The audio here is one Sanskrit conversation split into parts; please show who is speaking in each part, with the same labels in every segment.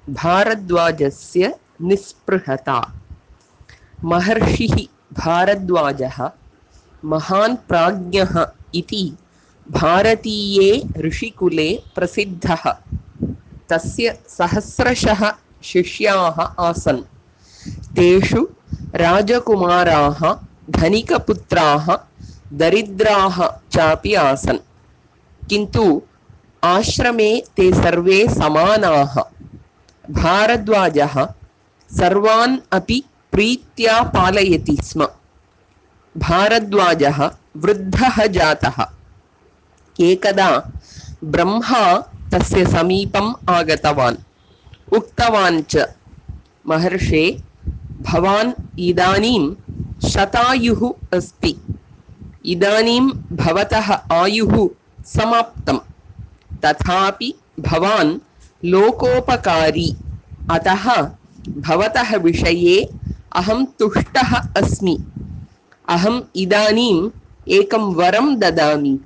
Speaker 1: भारद्वाजस्य निःस्पृहता। महर्षिः भारद्वाजः महान् प्राज्ञः इति भारतीये ऋषिकुले प्रसिद्धः। तस्य सहस्रशः शिष्याः आसन्। तेषु राजकुमाराः, धनिकपुत्राः, दरिद्राः चापि आसन्। किन्तु आश्रमे ते सर्वे समानाः। भारद्वाजः सर्वान् अपि प्रीत्या पालयति स्म। भारद्वाजः वृद्धः जातः। एकदा ब्रह्मा तस्य समीपम् आगतवान्। उक्तवान् च, महर्षे, भवान् इदानीं शतायुः अस्ति। इदानीं भवतः आयुः समाप्तं। तथापि भवान् लोकोपकारी। अतः भवतः विषये अहं तुष्टः अस्मि। अहम् इदानीम् एकं वरं ददामि।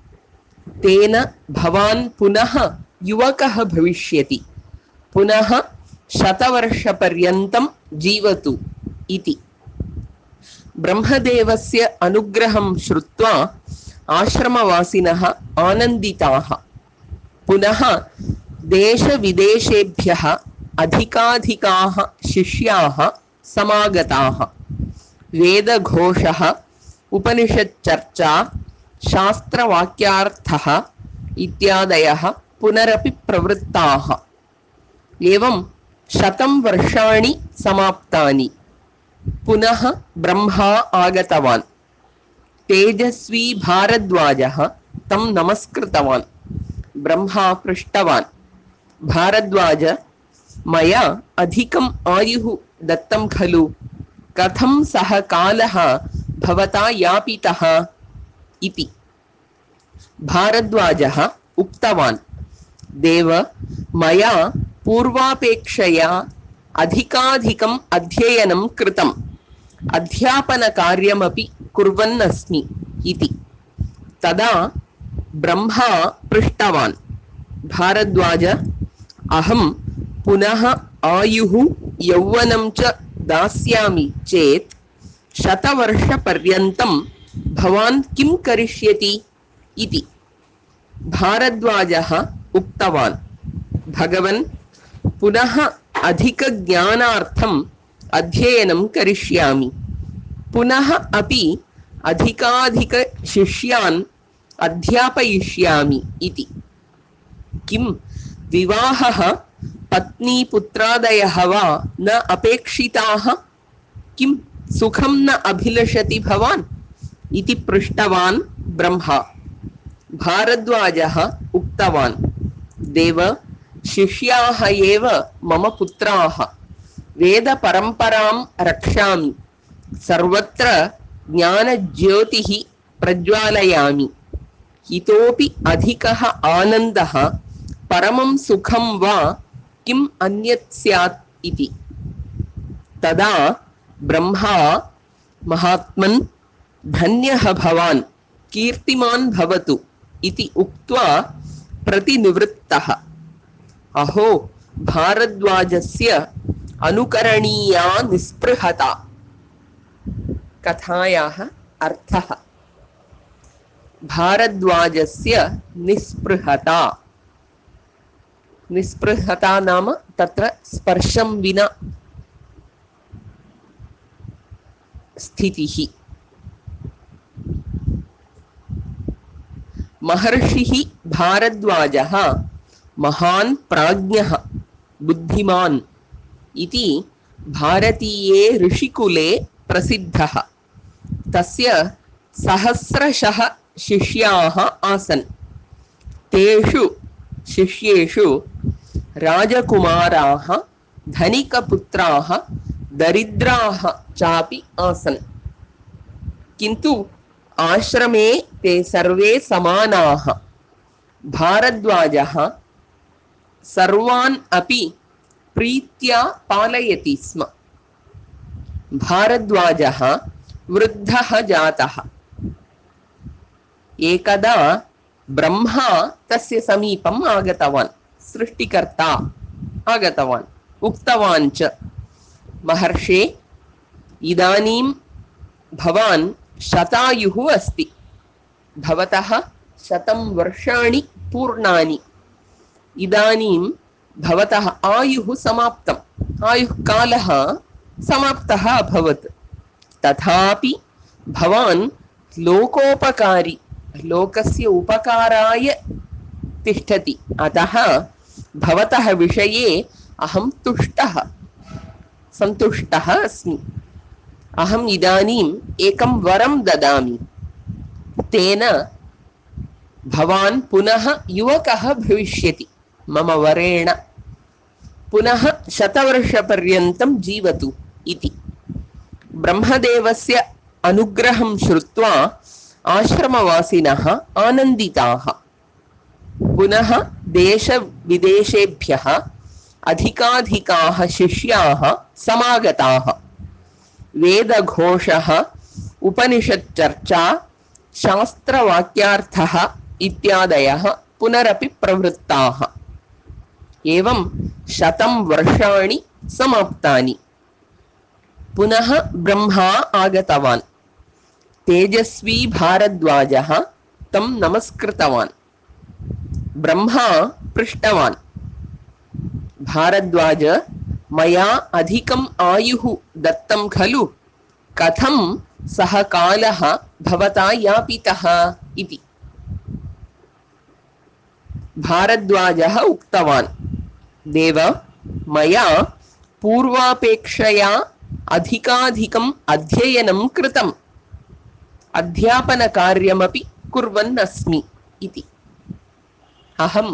Speaker 1: तेन भवान् पुनः युवकः भविष्यति। पुनः शतवर्षपर्यन्तं जीवतु इति। ब्रह्मदेवस्य अनुग्रहं श्रुत्वा आश्रमवासिनः आनन्दिताः। पुनः देशविदेशेभ्यः अधिकाधिकाः शिष्याः समागताः। वेदघोषः, उपनिषच्चर्चा, शास्त्रवाक्यार्थः इत्यादयः पुनरपि प्रवृत्ताः। एवं 100 वर्षाणि समाप्तानि। पुनः ब्रह्मा आगतवान्। तेजस्वी भारद्वाजः तं नमस्कृतवान्। ब्रह्मा पृष्टवान्, भारद्वाज, मया अधिकम् आयुः दत्तं खलु? कथं सः कालः भवता यापितः इति। भारद्वाजः उक्तवान्, देव, मया पूर्वापेक्षया अधिकाधिकम् अध्ययनं कृतम्। अध्यापनकार्यमपि कुर्वन् अस्मि इति। तदा ब्रह्मा पृष्टवान्, भारद्वाज, अहं पुनः आयुः यौवनं च दास्यामि चेत् 100 वर्षपर्यन्तं भवान् किं करिष्यति इति। भारद्वाजः उक्तवान्, भगवन्, पुनः अधिकज्ञानार्थम् अध्ययनं करिष्यामि। पुनः अपि अधिकाधिकशिष्यान् अध्यापयिष्यामि इति। किं विवाहः, पत्नी पुत्रादयः वा न अपेक्षिताः? किं सुखं न अभिलषति भवान् इति पृष्टवान् ब्रह्मा। भारद्वाजः उक्तवान्, देव, शिष्याः एव मम पुत्राः। वेदपरम्परां रक्षामि। सर्वत्र ज्ञानज्योतिः प्रज्वालयामि। इतोपि अधिकः आनन्दः, परमं सुखं वा किम् अन्यत् स्यात् इति। तदा ब्रह्मा, महात्मन्, धन्यः भवान्, कीर्तिमान् भवतु इति उक्त्वा प्रतिनिवृत्तः। अहो, भारद्वाजस्य अनुकरणीया निःस्पृहता। कथायाः अर्थः। भारद्वाजस्य निःस्पृहता। निःस्पृहता नाम तत्र स्पर्शं विना स्थितिः। महर्षिः भारद्वाजः महान् प्राज्ञः, बुद्धिमान् इति भारतीये ऋषिकुले प्रसिद्धः। तस्य सहस्रशः शिष्याः आसन्। तेषु शिष्येषु राजकुमाराः, धनिकपुत्राः, दरिद्राः चापि आसन्। किन्तु आश्रमे ते सर्वे समानाः। भारद्वाजः सर्वान् अपि प्रीत्या पालयति स्म। भारद्वाजः वृद्धः जातः। एकदा ब्रह्मा तस्य समीपम् आगतवान्। सृष्टिकर्ता आगतवान्। उक्तवान् च महर्षे इदानीं भवान् शतायुः अस्ति भवतः 100 वर्षाणि पूर्णानि इदानीं भवतः आयुः समाप्तम् आयुः कालः समाप्तः अभवत् तथापि भवान् लोकोपकारी लोकस्य उपकाराय तिष्ठति अतः भवतः विषये अहं सन्तुष्टः अस्मि अहम् इदानीम् एकं वरं ददामि तेन भवान् पुनः युवकः भविष्यति मम वरेण पुनः 100 वर्षपर्यन्तं जीवतु इति ब्रह्मदेवस्य अनुग्रहं श्रुत्वा आश्रमवासिनः आनन्दिताः पुनः देशविदेशेभ्यः अधिकाधिकाः शिष्याः समागताः वेदघोषः उपनिषच्चर्चा शास्त्रवाक्यार्थः इत्यादयः पुनरपि प्रवृत्ताः एवं 100 वर्षाणि समाप्तानि पुनः ब्रह्मा आगतवान् तेजस्वी भारद्वाजः तं नमस्कृतवान् ब्रह्मा पृष्टवान् भारद्वाज मया अधिकम् आयुः दत्तं खलु कथं सः कालः भवता यापितः इति भारद्वाजः उक्तवान् देव मया पूर्वापेक्षया अधिकाधिकम् अध्ययनं कृतम् अध्यापनकार्यमपि कुर्वन् अस्मि इति अहं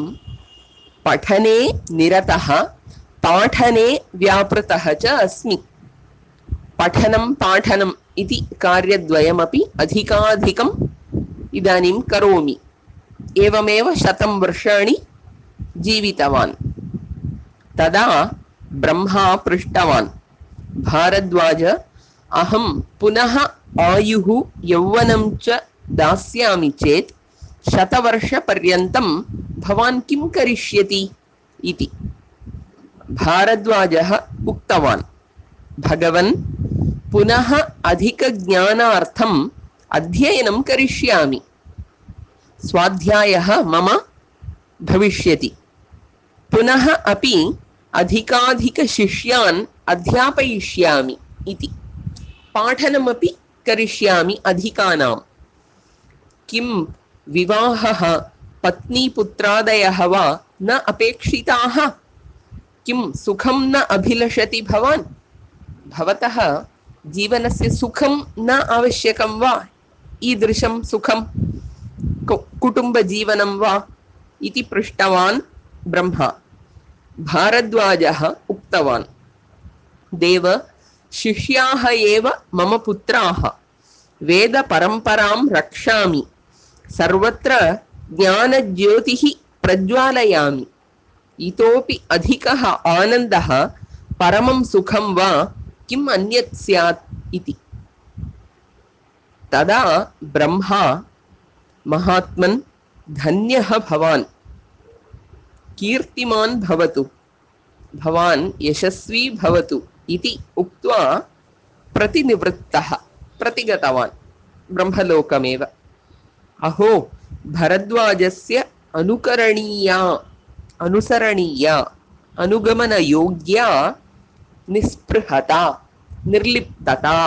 Speaker 1: पठने निरतः पाठने व्यापृतः च अस्मि पठनं पाठनम् इति कार्यद्वयमपि अधिकाधिकम् इदानीं करोमि एवमेव 100 वर्षाणि जीवितवान् तदा ब्रह्मा पृष्टवान् भारद्वाज अहं पुनः आयुः यौवनं च दास्यामि चेत् 100 वर्षपर्यन्तं भवान् किं करिष्यति इति भारद्वाजः उक्तवान् भगवन् पुनः अधिकज्ञानार्थम् अध्ययनं करिष्यामि स्वाध्यायः मम भविष्यति पुनः अपि अधिकाधिकशिष्यान् अध्यापयिष्यामि इति पाठनमपि करिष्यामि अधिकानां किं विवाहः पत्नीपुत्रादयः वा न अपेक्षिताः किं सुखं न अभिलषति भवान् भवतः जीवनस्य सुखं न आवश्यकं वा ईदृशं सुखं कुटुम्बजीवनं वा इति पृष्टवान् ब्रह्मा भारद्वाजः उक्तवान् देव शिष्याः एव मम पुत्राः वेदपरम्परां रक्षामि सर्वत्र ज्ञानज्योतिः प्रज्वालयामि इतोपि अधिकः आनन्दः परमं सुखं वा किम् अन्यत् स्यात् इति तदा ब्रह्मा महात्मन् धन्यः भवान् कीर्तिमान् भवतु भवान् यशस्वी भवतु इति उक्त्वा प्रतिनिवृत्तः प्रतिगतवान् ब्रह्मलोकमेव अहो भरद्वाजस्य अनुसरणीया अनुगमनयोग्या निस्पृहता निर्लिप्तता